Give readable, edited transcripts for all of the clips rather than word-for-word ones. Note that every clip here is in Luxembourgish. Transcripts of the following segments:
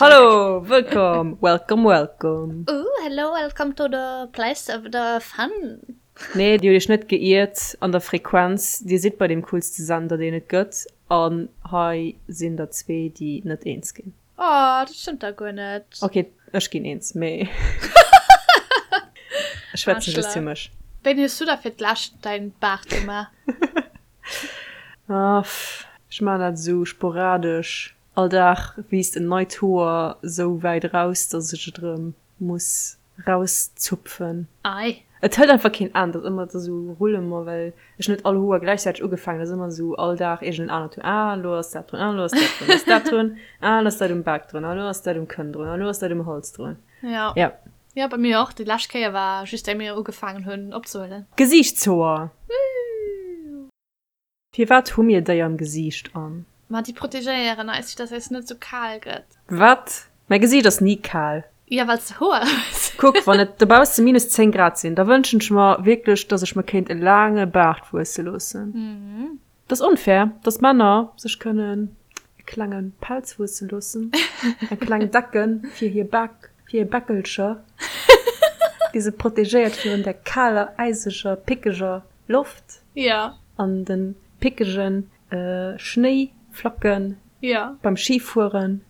Hallo, wëllkomm, welcome, welcome. Ooh, hello, welcome to the place of the fun. Nee, dir hutt iech net geiert an der Frequenz. Dir sidd bei deem coolste Sender, deen et gëtt. An hei sinn der zwee, déi net eens ginn. Oh, dat stëmmt da guer net. Ok, ech ginn eens, mee ech schwätzen just fir mech. Wéini hues du da fir d'lescht däin Baart gemaach? Ah, ech maachen dat esou sporadesch. All Dag wiisst en neit Hoer sou wäit eraus, dass ech et erëm muss rauszupfen. Ei. Et hëlt einfach keen Enn, dat ass ëmmer esou Rullement, well ech net all Hoer gläichzäiteg ugefaangen, dat ass ëmmer esou all Dag iergend en anert Hoer, ah elo ass dat drun, ah elo ass dat drun, ass dat drun, ah elo ass dat um Bak drun, ah elo ass dat um Kënn drun, ah elo ass dat um Hals drun. Ja. Ja. Ja, bei mir och. Déi lescht Kéier war just éi mir ugefaangen hunn opzehuelen. Gesiichtshoer! Firwat hu mir déi am Gesiicht an? Ma déi protegéieren eis, fir dass eis net sou kal gëtt. Wat? Mäi Gesiicht ass ni kal. Jo, well s de Hoer hues. Kuck, wann et dobausse minus 10 Grad sinn, da wënschen ech mer wierklech, dass ech mer kéint e laange Baart wuesse loossen. Et ass onfair, dass Männer sech kënnen e klenge Pelz wuesse loossen, eng kleng Decke fir hir Bak, fir hir Bäckelcher, déi se protegéiert virun der kaler, äiseger, pickeger Loft ja. an den pickegen Schnéiflacken ja. beim Schifueren.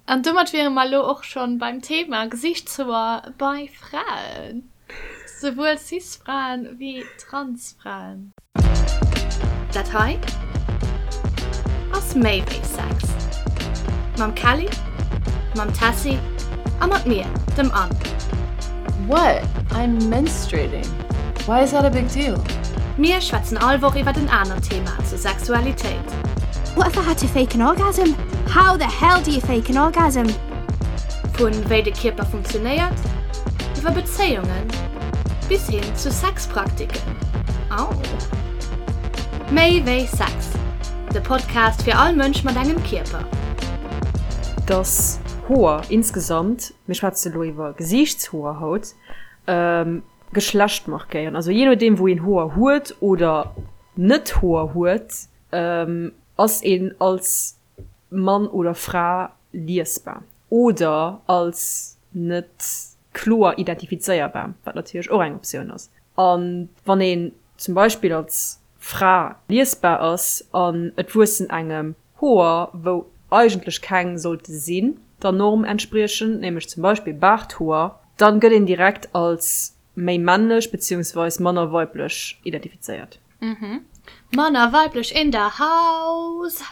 An domat wiere mer lo och schon beim Thema Gesichtshoer bei Fraen. Souwuel Cis-Fraen wéi Trans-Fraen. Dat hei ass méi wéi Sex. Mam Kelly, mam Tessy a mat mir, dem Anne. What? I'm menstruating. Why is that a big deal? Mir schwätzen all Woch iwwert en anert Thema zur Sexualitéit. What if I had to fake an orgasm? How the hell do you fake an orgasm? Vun wéi de Kierper funktionéiert, iwwer Bezéiungen bis hin zu Sexpraktiken. Au! Méi wéi Sex, de Podcast fir all Mënsch mat engem Kierper. Dass Hoer insgesamt, mir schwätze lo iwwer Gesiichtshoer haut, Geschlecht markéieren. Also jee nodeem wou een Hoer huet oder net Hoer huet, ass een als Mann oder Fra liesbar oder als net kloer identifizéierbar, wat natierlech och eng Optioun ass. A wann een zum Beispill als Fra liesbar ass an et wuessen engem Hoer, wou eigentlech keng sollte sinn, der Norm entspriechend, nämlech zum Beispill Baarthoer, dann gëtt een direkt als méi männlech beziehungsweis manner weiblech identifizéiert. Manner weiblech in the house!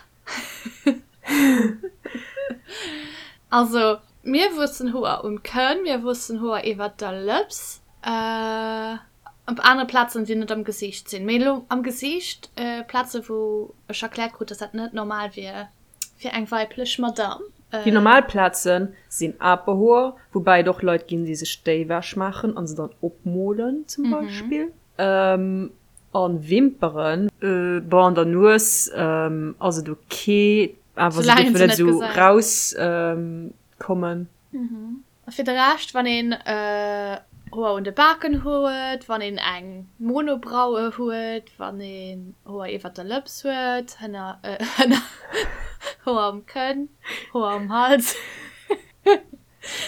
Also, mir wuessen Hoer um Kënn, mir wuessen Hoer iwwert der Lëps. Op anere Plazen, déi net am Gesiicht sinn. Mee elo am Gesiicht, Plaze wou ech erkläert krut, dass dat net normal wier fir eng weiblech Madame. Déi normal Plaze sinn Aperhoer, woubäi et och Leit ginn, déi sech déi ewech maachen a se dann opmolen zum Beispill. A Wimperen. Bon, an der Nues ass et ok, awer se dierfen net esou rauskommen. A fir de Rescht, wann een Hoer un de Baken huet, wann een eng Monobraue huet, wann een Hoer iwwert der Lëps huet, hënner, hënner, Hoer um Kënn, Hoer um Hals.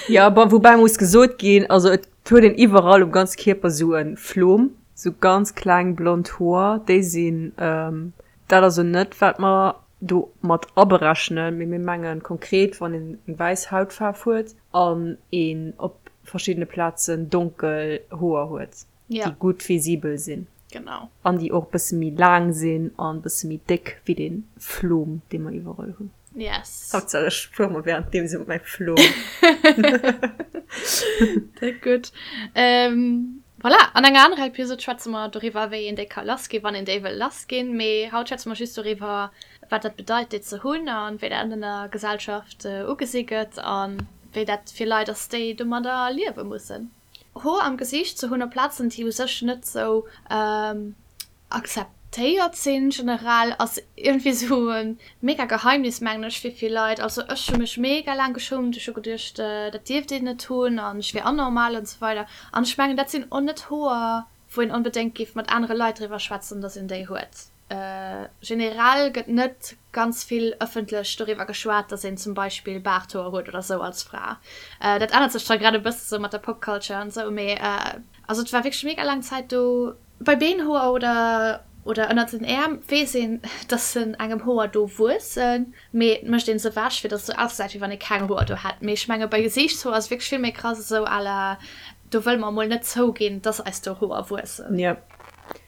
Jo, bon, woubäi muss gesot ginn, also et huet een iwwerall um ganze Kierper sou e Flom, sou ganz kleng blond Hoer, déi sinn, dat ass elo net wat mer do mat aberechnen, mee mir mengen konkret, wann een eng wäiss Hautfaarf huet an een op verschiddene Plazen donkel Hoer huet, déi gutt visibel sinn. Genau. An déi och e bësse méi laang sinn an e bësse méi déck wéi dee Flom, dee mer iwwerall hunn. Yes. Haaptsaach ech fuere mer währenddeem sou mat mäi Flom. Dat gutt. Voilà, an enger anerer Episode schwätze mer doriwwer, wéi een déi ka lassginn, wann een déi wëll lassginn. Mee haut schwätze mer just doriwwer, wat dat bedeit, déi ze hunn a wéi dat an der Gesellschaft ugesi gëtt a wéi dat fir Leit ass, déi domadder liewe mussen. Hoer am Gesiicht ze hunn op Plazen, déi u sech net sou Akzeptéiert sinn generell ass iergendwéi sou e mega Geheimnis mengen ech fir vill Leit. Also ech hu mech mega laang geschummt, ech hu geduecht dat dierft een net hunn an ech wier anormal an sou weider. An ech mengen dat sinn och net Hoer wou een onbedéngt géif mat anere Leit driwwer schwätzen, dass een déi huet. Generell gëtt net ganz vill ëffentlech doriwwer geschwat, dass een zum Beispill Baarthoer huet oder sou als Fra. Dat ännert sech zwar grad e bësse sou mat der Pop-Culture an sou, mee also et war wierklech mega laang Zäit do. Bei Beenhoer oder oder ënnert den Äerm weess een, dass se engem Hoer do wuessen, mee et mécht een se ewech, fir dass et sou ausgesäit, wéi wann ee keng Hoer do hätt. Mee ech menge bei Gesiichtshoer ass et wierklech vill méi krass, esou à la do wëlle mer emol net zouginn, dass eis do Hoer wuessen. Jo.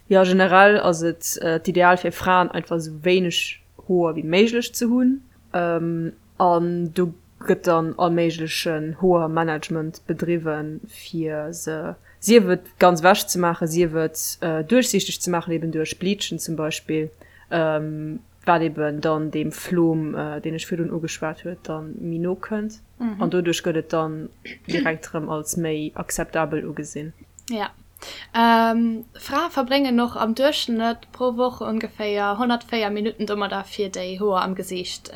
Jo, generell ass et d'Ideal fir Fraen einfach esou wéineg Hoer wéi méiglech ze hunn. An do gëtt dann all méiglechen Hoermanagement bedriwwen, fir se sief et ganz ewech ze maachen, sief et duerchsiichteg ze maachen, eben duerch Bleachen zum Beispill, wat eben dann deem Flom, deen ech virdrun ugeschwat huet, dann méi no kënnt. An doduerch gëtt et dann direkt erëm als méi akzeptabel ugesinn. Ja. Frae verbréngen och am Duerchschnëtt pro Woch ongeféier 104 Minutten domadder, fir déi Hoer am Gesiicht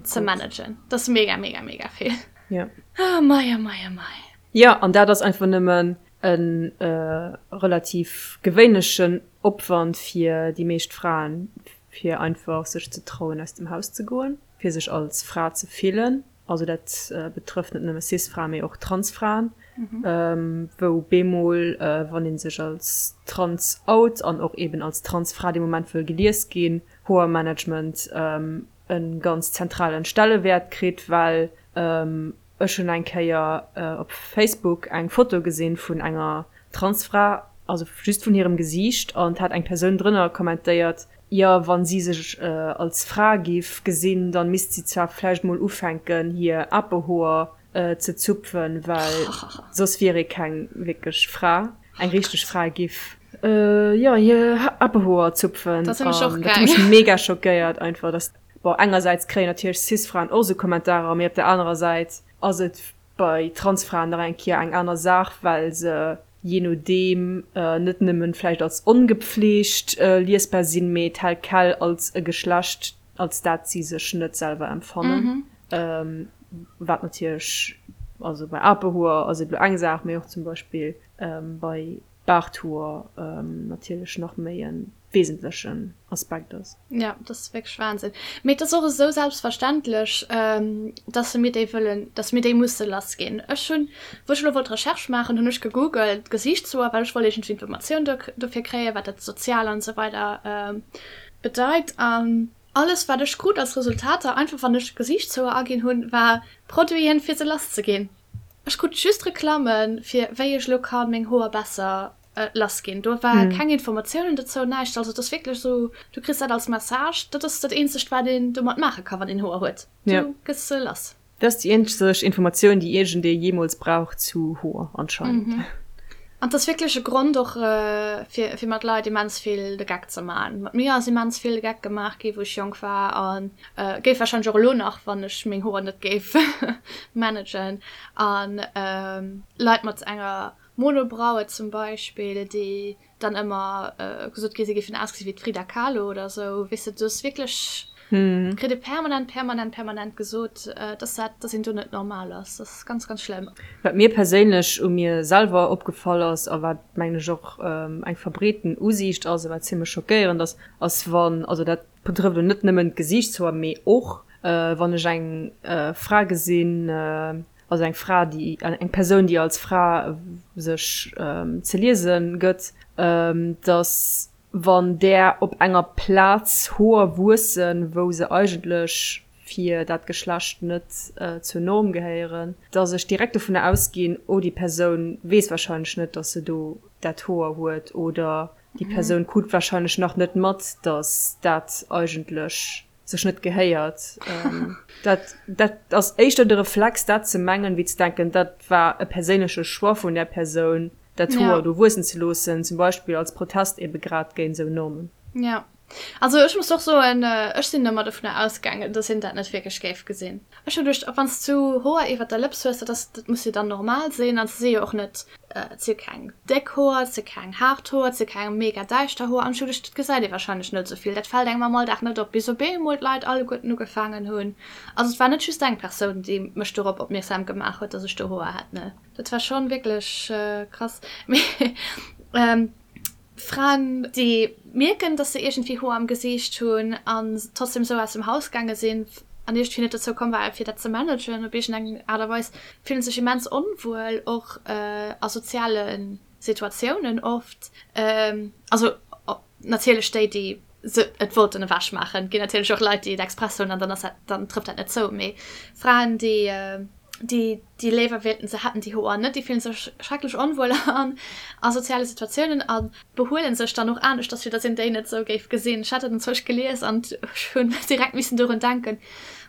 ze managen. Dat ass mega, mega, mega vill. Ja. Oh mei, oh mei, oh mei. Jo, an dat ass einfach nëmmen e relativ gewéinlechen Opwand fir déi meescht Fraen, fir einfach sech ze trauen, aus dem Haus ze goen, fir sech als Fra ze fillen. Also dat betrëfft net nëmme Cis-Fraen, mee och Trans-Fraen, wou bemol, wann ee sech als trans out an och eben als Trans-Fra dee Moment wëll gelies ginn, Hoermanagement e ganz zentralen Stellewäert kritt, well ech hunn eng Kéier op Facebook eng Foto gesinn vun enger Transfra, also just vun hirem Gesiicht, an et hat eng Persoun drënner kommentéiert, jo wann si sech als Fra giff gesinn, dann misst si zwar vläicht mol ufänken hir Apehoer ze zupfen, well soss wier ee keng wierklech Fra. Eng richteg Fra giff jo hir Apehoer zupfen. Dat hunn ech och An dat huet mech mega schockéiert einfach, dass, bon engersäits kréien natierlech Cis-Fraen och sou Kommentarer, mee op der anerer Säit ass et bei Transfraen nach eng Kéier eng aner Saach, well se jee nodeem net nëmmen vläicht als ongepflegt liesbar sinn, mee tel quel als e Geschlecht, als dat si sech net selwer empfannen. Wat natierlech, also bei Apehoer ass et elo eng Saach, mee och zum Beispill bei Baarthoer natierlech nach méi e wesentlechen Aspekt ass. Ja, dat ass wierklech Wahnsinn. Mee et ass och esou selbstverständlech, dass mir déi wëllen, dass mir déi musse lass ginn. Ech hunn, wou ech elo wollt Recherche maachen, hunn ech gegoogelt Gesiichtshoer, well ech wollt iergendwéi Informatioun dofir kréien, wat dat sozial an esou weider bedeit. An alles, wat ech krut als Resultater, einfach wann ech Gesiichtshoer aginn hunn, war Produiten, fir se lass ze ginn. Ech krut just Reklammen, fir wéi ech elo kann meng Hoer besser lass ginn. Do war keng Informatiounen dozou, näischt. Also et ass wierklech esou, du kriss dat als Message, dat ass dat eenzegt wat een domat maache ka wann een Hoer huet, du gëss se lass. Dat ass déi eenzeg Informatioun déi iergendee jeemools brauch zu Hoer anscheinend. An et ass wierklech e Grond och fir fir mat Leit immens vill de Geck ze man. Mat mir ass immens vill de Geck gemaach gi wou ech jonk war an géif warscheinlech och elo nach, wann ech meng Hoer net géif managen. An Leit mat enger Monobraue zum Beispill, déi dann ëmmer gesot gi si géifen ausgesi wéi d'Frida Kahlo oder esou, weess de, do ass wierklech, kritt ee permanent, permanent, permanent gesot, dass dat, dass een do net normal ass. Dat ass ganz, ganz schlëmm. Wat mir perséinlech u mir selwer opgefall ass a wat, mengen ech, och eng verbreeten Usiicht ass a wat zimmlech schockéierend ass, ass wann, also dat betrëfft elo net nëmmen d'Gesiichtshoer, mee och wann ech eng Fra gesinn, Also eng Fra, déi, eng Persoun, déi als Fra sech ze liese gëtt, datt wann där op enger Plaz Hoer wuessen, wou se eigentlech fir dat Geschlecht net zur Norm gehéieren, datt ech direkt dovunner ausginn, oh déi Persoun weess warscheinlech net, datt se do dat Hoer huet oder déi Persoun krut warscheinlech nach net mat, datt dat eigentlech sech net gehéiert. Dat, dat ass éischter de Reflex, dat ze mengen, wéi ze denken, dat war e perséinleche Choix vun där Persoun, dat Hoer do wuessen ze loossen, zum Beispill als Protest ebe grad géint esou Normen. Ja. Also ech muss och soen, ech sinn ëmmer dovunner ausgaangen, dass een dat net wierklech géif gesinn. Ech hu geduecht, wann s du Hoer iwwert der Lëps hues, dat ass, dat muss jo dann normal sinn an se si jo och net Et si keng déck Hoer, et si keng haart Hoer, et si keng mega däischter Hoer. An ech hu geduecht, dat gesäit ee warscheinlech net esou vill, dat fält engem am Alldag net op, bis op eemol d'Leit alleguerten ugefaangen hunn. Also et war net just eng Persoun, déi mech dorop opmierksam gemaach huet, dass ech do Hoer hätt, ne. Dat war schonn wierklech krass. Mee. Fraen, déi mierken, dass se iergendwéi Hoer am Gesiicht hunn an trotzdem esou aus dem Haus gaange sinn an iergendwéi net dozou komm waren, fir dat ze managen op iergendeng Aart a Weis, fillen sech immens onwuel, och a soziale Situatiounen oft. Also natierlech déi, déi se et wollten ewech maachen. Et ginn natierlech och Leit, déi et express hunn an dann ass dat, dann trëfft dat net zou. Mee Fraen, déi, déi, déi léiwer wéilten, se hätten déi Hoer net, déi fillen sech schrecklech onwuel an a soziale Situatiounen a behuelen sech dann och aneschters, fir datt een déi net esou géif gesinn. Ech hat dat enzwousch gelies an ech hunn direkt missen dorun denken,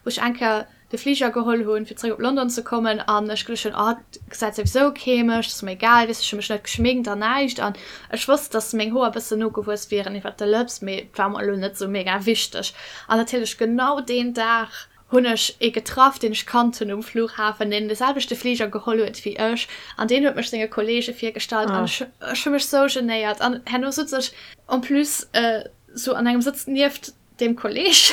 wou ech eng Kéier de Fliger geholl hunn, fir zeréck op London ze kommen an ech geduecht hunn, oh, et gesäit souwisou kee mech, et ass mer egal, weess, ech hu mech net geschminkt an näischt an ech wosst, dass meng Hoer e bëssen nogewuess wieren iwwert de Lëps, mee et war mer elo net sou mega wichteg. An natierlech genau deen Dag hunn ech ee getraff, deen ech kannt hunn um Flughafen, deen de selwechte Fliger geholl huet wéi ech an deen huet mech senge Kollege virgestallt an ech ech hu mech sou genéiert an herno sutz ech en plus sou an engem Sëtz nieft deem Kolleg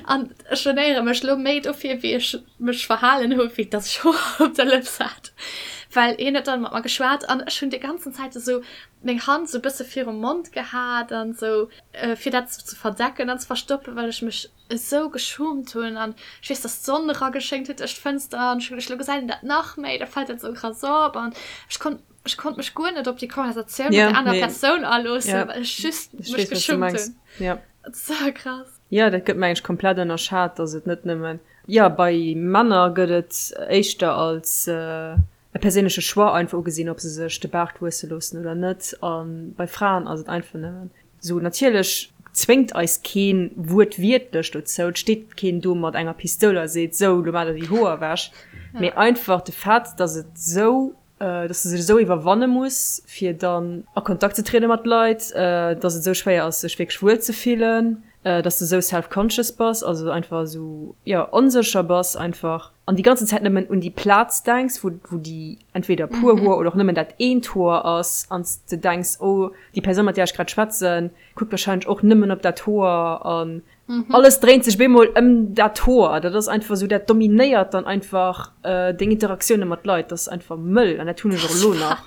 An ech genéiere mech lo méi dofir, wéi ech mech verhalen hu wéi dass ech Hoer op der Lëps hat. Well hien huet dann mat mer geschwat an ech hunn déi ganzen Zäit esou meng Hand esou bësse virum Mond gehat an esou fir dat esou ze verdecken an ze verstoppen, well ech mech esou geschummt hunn. An ech weess, dass d'Sonn erageschéngt huet duerch d'Fënster an ech hu geduecht, lo gesäit een dat nach méi, da fält dat esou krass op. An ech konnt ech konnt mech guer net op déi Konversatioun mat der anerer Persoun aloossen, well ech just mech geschummt hunn. Dat ass sou krass. Jo, dat gëtt mengen ech komplett ënnerschat, dass et net nëmmen, jo, bei Männer gëtt et éischter als e perséinleche Choix einfach ugesinn, ob se sech de Baart wuesse loossen oder net, a bei Fraen ass et einfach nëmmen esou. Natierlech zwéngt eis keen wuertwiertlech dozou, et steet keen do mat enger Pistoul a seet, sou, lo maacht der déi Hoer ewech, mee einfach de Fait, dass et esou dass de sech esou iwwerwanne muss, fir dann a Kontakt ze triede mat Leit, dass et esou schwéier ass, sech wierklech wuel ze fillen, dass de esou self-conscious bass, also einfach esou, jo, onsécher bass einfach an déi ganzen Zäit nëmmen un déi Plaz denks, wou, wou déi entweder puer Hoer oder och nëmmen dat eent Hoer ass an s de denks, oh, déi Persoun, mat där ech grad schwätzen, kuckt warscheinlech och nëmmen op dat Hoer an Alles dréint sech bemol ëm dat Hoer. Dat ass einfach esou, dat dominéiert dann einfach deng Interaktioune mat Leit. Dat ass einfach mëll an dat hunn ech och elo nach.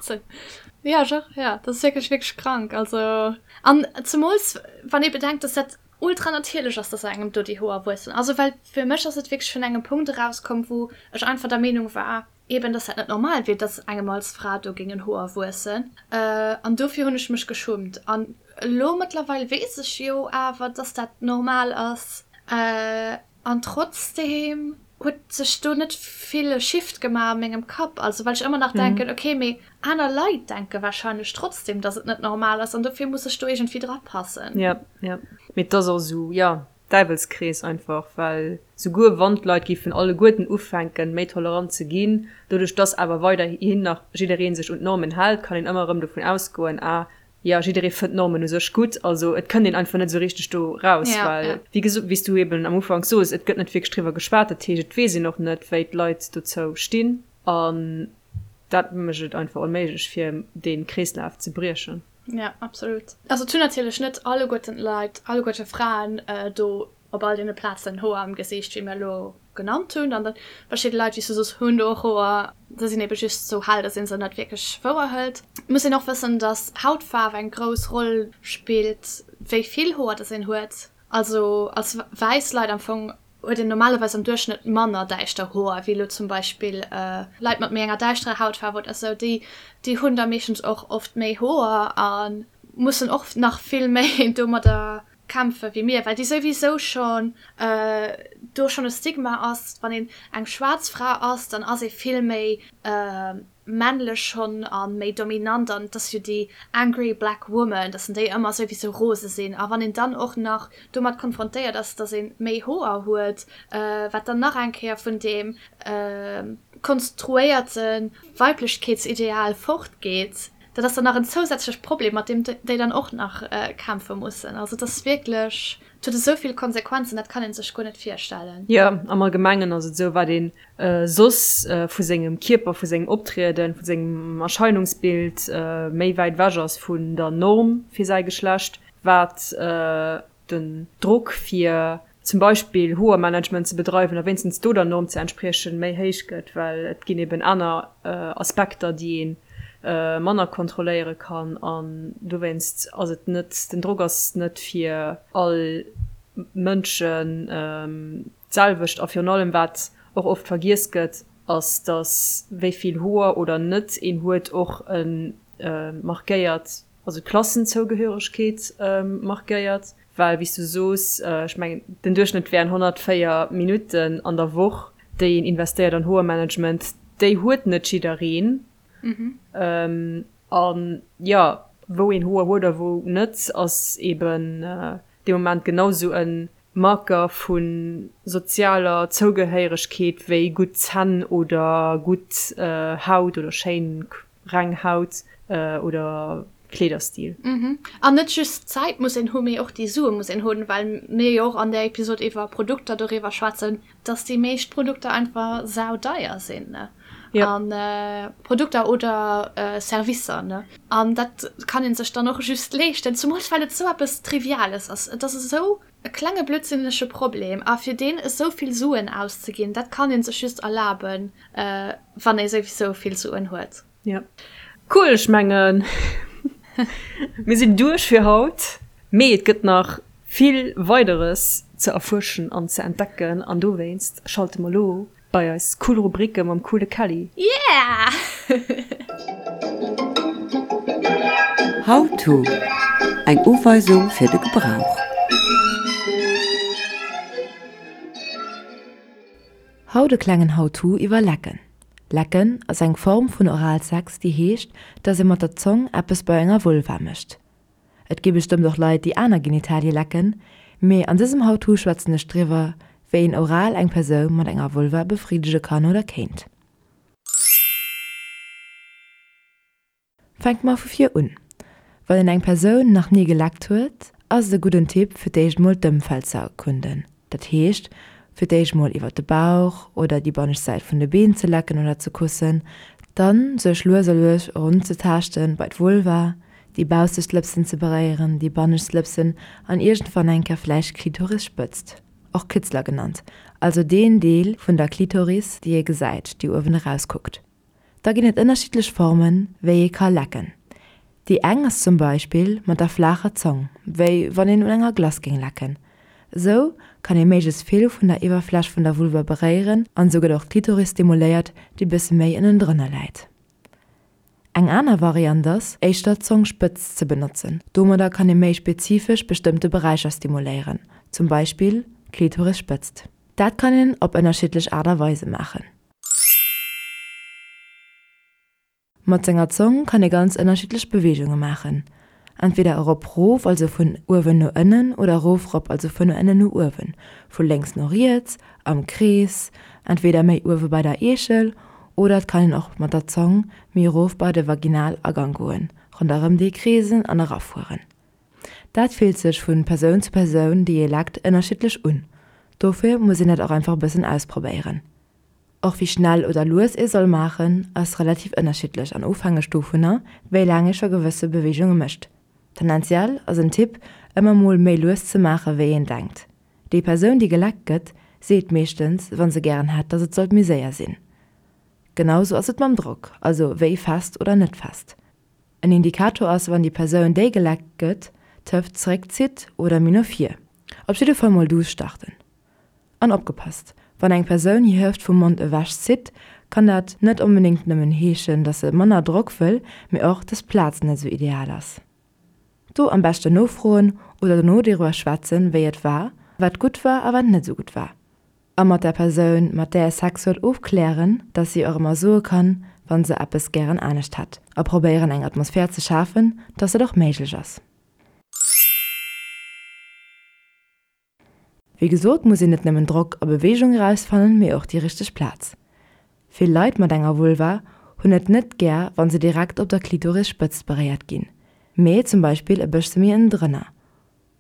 Jo, ech och, jo. Dat ass wierklech, wierklech krank. Also, an zemools wann ee bedenkt, dass dat ultra natierlech ass, dass engem do déi Hoer wuessen. Also, well fir mech ass et wierklech vun engem Punkt erauskomm, wou ech einfach der Meenung war, Eben, dass dat net normal wier, dass engem als Fra do géingen Hoer wuessen. An dofir hunn ech mech geschummt. An elo mëttlerweil weess ech jo awer, dass dat normal ass. An trotzdeem huet sech do net vill e Shift gemaach a mengem Kapp. Also well ech ëmmer nach denken, okay, mee aner Leit denke warscheinlech trotzdeem, dass et net normal ass an dofir muss ech do iergendwéi drapassen. Jo, jo. Mee et ass och esou, jo. Däiwelskrees einfach, well souguer wann d'Leit géifen alleguerten ufänken, méi tolerant ze ginn, doduerch dass awer weiderhin nach jidderee sech un d'Normen hält, kann een ëmmer erëm dovun ausgoen, ah jo, jidderee fënnt d'Normen u sech gutt. Also et kënnt een einfach net esou richteg do raus, well wéi gesot, wéi s du eben am Ufank sos, et gëtt net wierklech driwwer geschwat, dat heescht et weess een och net, wéi d'Leit dozou stinn an dat mécht et einfach onméiglech, fir dee Kreeslaf ze briechen. Ja, absolut. Also et hunn natierlech net alleguerten d'Leit, alleguerte Fraen do op all deene Plazen Hoer am Gesiicht, wéi mir elo genannt hunn. An dann verschidde Leit, wéi s du soos, hunn do och Hoer, se sinn ebe just sou hell, datt ee se net wierklech wouer hëlt. Et muss een och wëssen, datt Hautfaarf eng grouss Roll spillt, wéi vill Hoer datt een huet. Also als wäiss Leit am Fong huet een normalerweis am Duerchschnëtt manner däischter Hoer wéi elo zum Beispill Leit mat méi enger däischterer Hautfaarf oder sou. Déi déi hunn da meeschtens och oft méi Hoer a mussen och nach vill méi domadder kämpfe wéi mir, well déi souwisou schonn do schonn e Stigma ass, wann een eng schwaarz Fra ass, dann ass ee vill méi männlech schonn a méi dominant an et ass jo déi angry black woman, dass déi ëmmer souwisou rose sinn a wann een dann och nach domat konfrontéiert ass, dass ee méi Hoer huet, wat dann nach eng Kéier vun deem konstruéierte Weiblechkeetsideal fortgeet, dat ass dann nach en zousätzlecht Problem, mat deem déi dann och nach kämpfe mussen. Also et ass wierklech, et huet esou vill Konsequenzen, dat kann ee sech guer net virstellen. Jo, am Allgemengen ass et esou, wat een soss vu sengem Kierper, vu sengem Optrieden, vu sengem Erscheinungsbild méi wäit ewech ass vun der Norm fir säi Geschlecht, wat den Drock fir zum Beispill Hoermanagement ze bedreiwen a wéinstens do der Norm ze entspriechen, méi héich gëtt, well et ginn eben aner Aspekter, déi een. manner kontrolléiere kann an dowéinst ass et net, den Drock ass net fir all Mënschen d'selwecht a virun allem wat och oft vergiess gëtt, ass datt wéi vill Hoer oder net een huet och e markéiert, also d'Klassenzougehöregkeet markéiert, well wéi s du soos, ech mengen den Duerchschnëtt wären 104 Minutten an der Woch déi een investéiert an Hoermanagement, déi huet net jiddereen. An jo, wou een Hoer huet a wou net, ass eben dee Moment genau sou e Marker vu sozialer Zougehéieregkeet wéi gutt Zänn oder gutt Haut oder schéin reng Haut oder Kleederstil. An net just d'Zäit muss een hu mee och déi Sue muss een hunn, well mir jo och an där Episod iwwer Produkter doriwwer schwätzen, dass déi meescht Produkter einfach saudeier sinn, ne? Ja. An Produkter oder Servicer, ne? An dat kann ee sech dann och just leeschten, zumools well et esou eppes Triviales ass. Et ass esou e klenge blödsinnege Problem a fir deen esou vill Suen auszeginn, dat kann ee sech just erlaben, wann ee souwisou vill Suen huet. Ja. Cool, ech mengen mir sinn duerch fir haut, mee et gëtt nach vill Weideres ze erfuerschen an ze entdecken an dowéinst schalte mer lo bei eis cool Rubrike mam coole Kelly. Yeah! How to, Eng Uweisung fir de Gebrauch. Haut e klengen How to iwwer Lecken. Lecken ass eng Form vun Oralsex, déi heescht, dass ee mat der Zong eppes bei enger Vulva mécht. Et gi bestëmmt och Leit, déi aner Genitalie lecken, mee an dësem How to schwätzen ech driwwer, wéi een oral eng Persoun mat enger Vulva befriddege kann oder kéint. Fänke mer vu vir un. Wann een eng Persoun nach ni geleckt huet, ass et e gudden Tipp fir d'éischt mol d'Ëmfeld ze erkunden. Dat heescht fir d'éischt mol iwwert de Bauch oder déi bannescht Säit vun de Been ze lecken oder ze kussen, dann sech lues a lues erunzetaaschten bei d'Vulva, déi baussegt Lëpsen ze beréieren, déi bannescht Lëpsen an iergendwann eng Kéier vläicht d'Klitorisspëtzt, och Kitzler genannt, also deen Deel vun der Klitoris déi ee gesäit, déi uewen erauskuckt. Da ginn et ënnerschiddlech Formen, wéi ee ka lecken. Déi eng ass zum Beispill mat der flaacher Zong, wéi wann een un enger Glace géing lecken. Esou kann ee méiglechst vill vun der Iwwerfläch vun der Vulva beréieren an esou gëtt och d'Klitoris stimuléiert, déi bësse méi ënnendrënner läit. Eng aner Variant ass, éischter d'Zongspëtz ze benotzen. Domadder kann ee méi spezifesch bestëmmte Beräicher stimuléieren, zum Beispill d'Klitorisspëtzt. Dat kann een op ënnerschiddlech Aart a Weise maachen. Mat senger Zong kann ee ganz ënnerschiddlech Beweegunge maachen, entweder erop rof, also vun uewen no ënnen, oder erof rop, also vun ënnen no uewen, vu lénks no riets, am Krees, entweder méi uewe bei der Eechel, oder et kann een och mat der Zong méi erof bei de Vaginalagang goen, ronderëm dee kreesen an erafueren. Dat fillt sech vu Persoun zu Persoun, déi ee leckt, ënnerschiddlech un. Dofir muss een dat och einfach e bëssen ausprobéieren. Och wéi schnell oder lues ee soll maachen, ass relativ ënnerschiddlech an ofhängeg dovunner, wéi laang ee scho gewësse Beweegunge mécht. Tendenziell ass en Tipp, ëmmer mol méi lues ze maache wéi een denkt. Déi Persoun, déi geleckt gëtt, seet meeschtens, wa se gären hätt, dass et sollt méi séier sinn. Genau sou ass et mam Drock, also wéi fest oder net fest. En Indikator ass, wann déi Persoun, déi geleckt gëtt, d'Hëft zeréckzitt oder méi no vir. Op jidde Fall mol duuss starten. An opgepasst, Wann eng Persoun hir Hëft vum Mond ewech zitt, kann dat net onbedéngt nëmmen heeschen, dass se manner Drock wëll, mee och, dass d'Plaz net esou ideal ass. Do am beschten nofroen oder dono doriwwer schwätzen, wéi et war, wat gutt war a wat net esou gutt war. A mat der Persoun, mat där ee Sex huet, ofklären, dass si och ëmmer soe kann, wa se eppes gären anescht hätt. A probéieren eng Atmosphär ze schafen, dass dat och méiglech ass. Wéi gesot muss een net nëmmen Drock a Beweegung erausfannen, mee och déi richteg Plaz. Vill Leit mat enger Vulva hunn et net gär wann se direkt op der Klitorisspëtzt beréiert ginn, mee zum Beispill e bëssche méi ënnendrënner.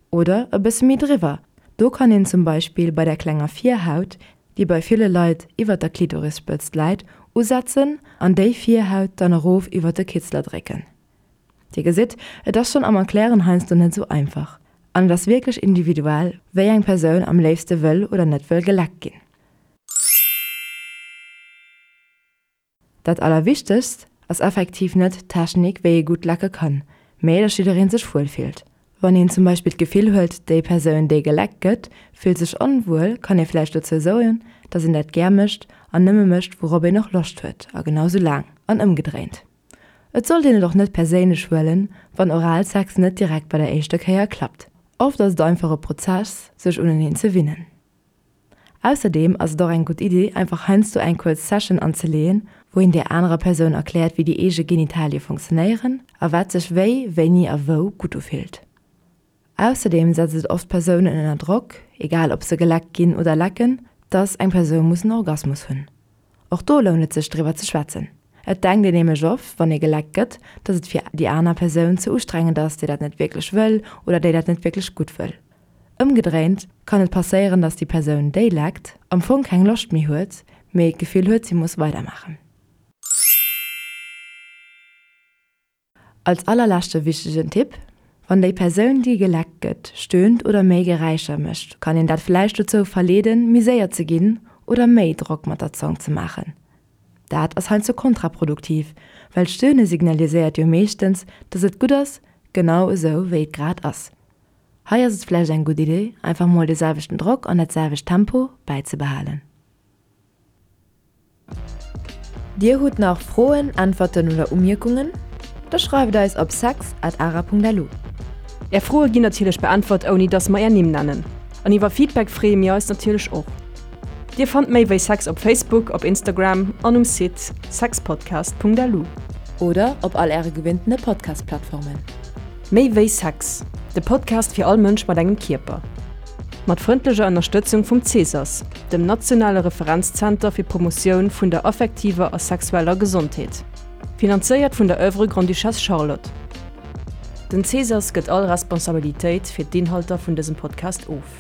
Oder e bësse méi driwwer. Do kann een zum Beispill bei der klenger Virhaut, déi bei ville Leit iwwert der Klitorisspëtzt läit, usetzen an déi Virhaut dann erof iwwert de Kitzler drécken. Dir gesitt, et ass schonn am Erklären heiansdo net esou einfach. An et ass wierklech individuell, wéi eng Persoun am léifste wëll oder net wëll geleckt ginn. Dat Allerwichtegst. ass effektiv net d'Technik, wéi ee gutt lecke kann, mee dass jidderee sech wuel fillt. Wann een zum Beispill d'Gefill huet, déi Persoun, déi geleckt gëtt, fillt sech onwuel, kann ee vläicht dozou soen, dass een dat gär mécht an nëmme mécht, wourop een och Loscht huet a genau sou laang an ëmgedréint. Et sollt een et och net perséinlech huelen, wann Oralsex net direkt bei der éischter Kéier klappt. Oft ass et einfach e Prozess, sech uneneen ze winnen. Ausserdeem ass et och eng gutt Iddi, einfach heiansdo eng kuerz Session anzeleeën, wou een där anerer Persoun erkläert, wéi déi eege Genitalie funktionéieren a wat sech wéi, wéini a wou gutt ufillt. Ausserdeem setzt et oft Persounen ënner Drock, egal ob se geleckt ginn oder lecken, dass eng Persoun muss en Orgasmus hunn. Och do lount et sech driwwer ze schwätzen. Et denkt een nämlech oft, wann ee geleckt gëtt, dass et fir déi aner Persoun ze ustrengend ass, déi dat net wierklech wëll oder déi dat net wierklech gutt wëll. Ëmgedréint kann et passéieren, dass déi Persoun, déi leckt, am Fong keng Loscht méi huet, mee d'Gefill huet, si muss weidermaachen. Als allerleschte wichtegen Tipp, Wann déi Persoun, déi geleckt gëtt, stöhnt oder méi Geräischer mécht, kann een dat vläicht dozou verleeden, méi séier ze ginn oder méi Drock mat der Zong ze maachen. Dat ass heiansdo kontraproduktiv, well d'Stöhne signaliséiert jo meeschtens, dass et gutt ass, genau esou wéi et grad ass. Hei ass et vläicht eng gutt Idee, einfach mol de selwechten Drock an dat selwecht Tempo bäizebehalen. Dir hutt nach Froen, Äntwerten oder Umierkungen? Da schreift eis op sex at ara.lu. Är Froe ginn natierlech beäntwert ouni dass mer är Nimm nennen. An iwwer Feedback freeë mir eis natierlech och. Dir fannt méi wéi Sex op Facebook, op Instagram an um Site sexpodcast.lu. Oder op all äre gewinntene Podcast-Plattformen. Méi wéi Sex, de Podcast fir all Mënsch mat engem Kierper. Mat frëndlecher Ënnerstëtzung vum CESAS, dem nationale Referenzzenter fir d'Promotioun vun der affektiver a sexueller Gesondheet. Finanzéiert vun der Oeuvre Grande-Duchesse Charlotte. Den CESAS gëtt all Responsabilitéit fir d'Inhalter vun dësem Podcast of.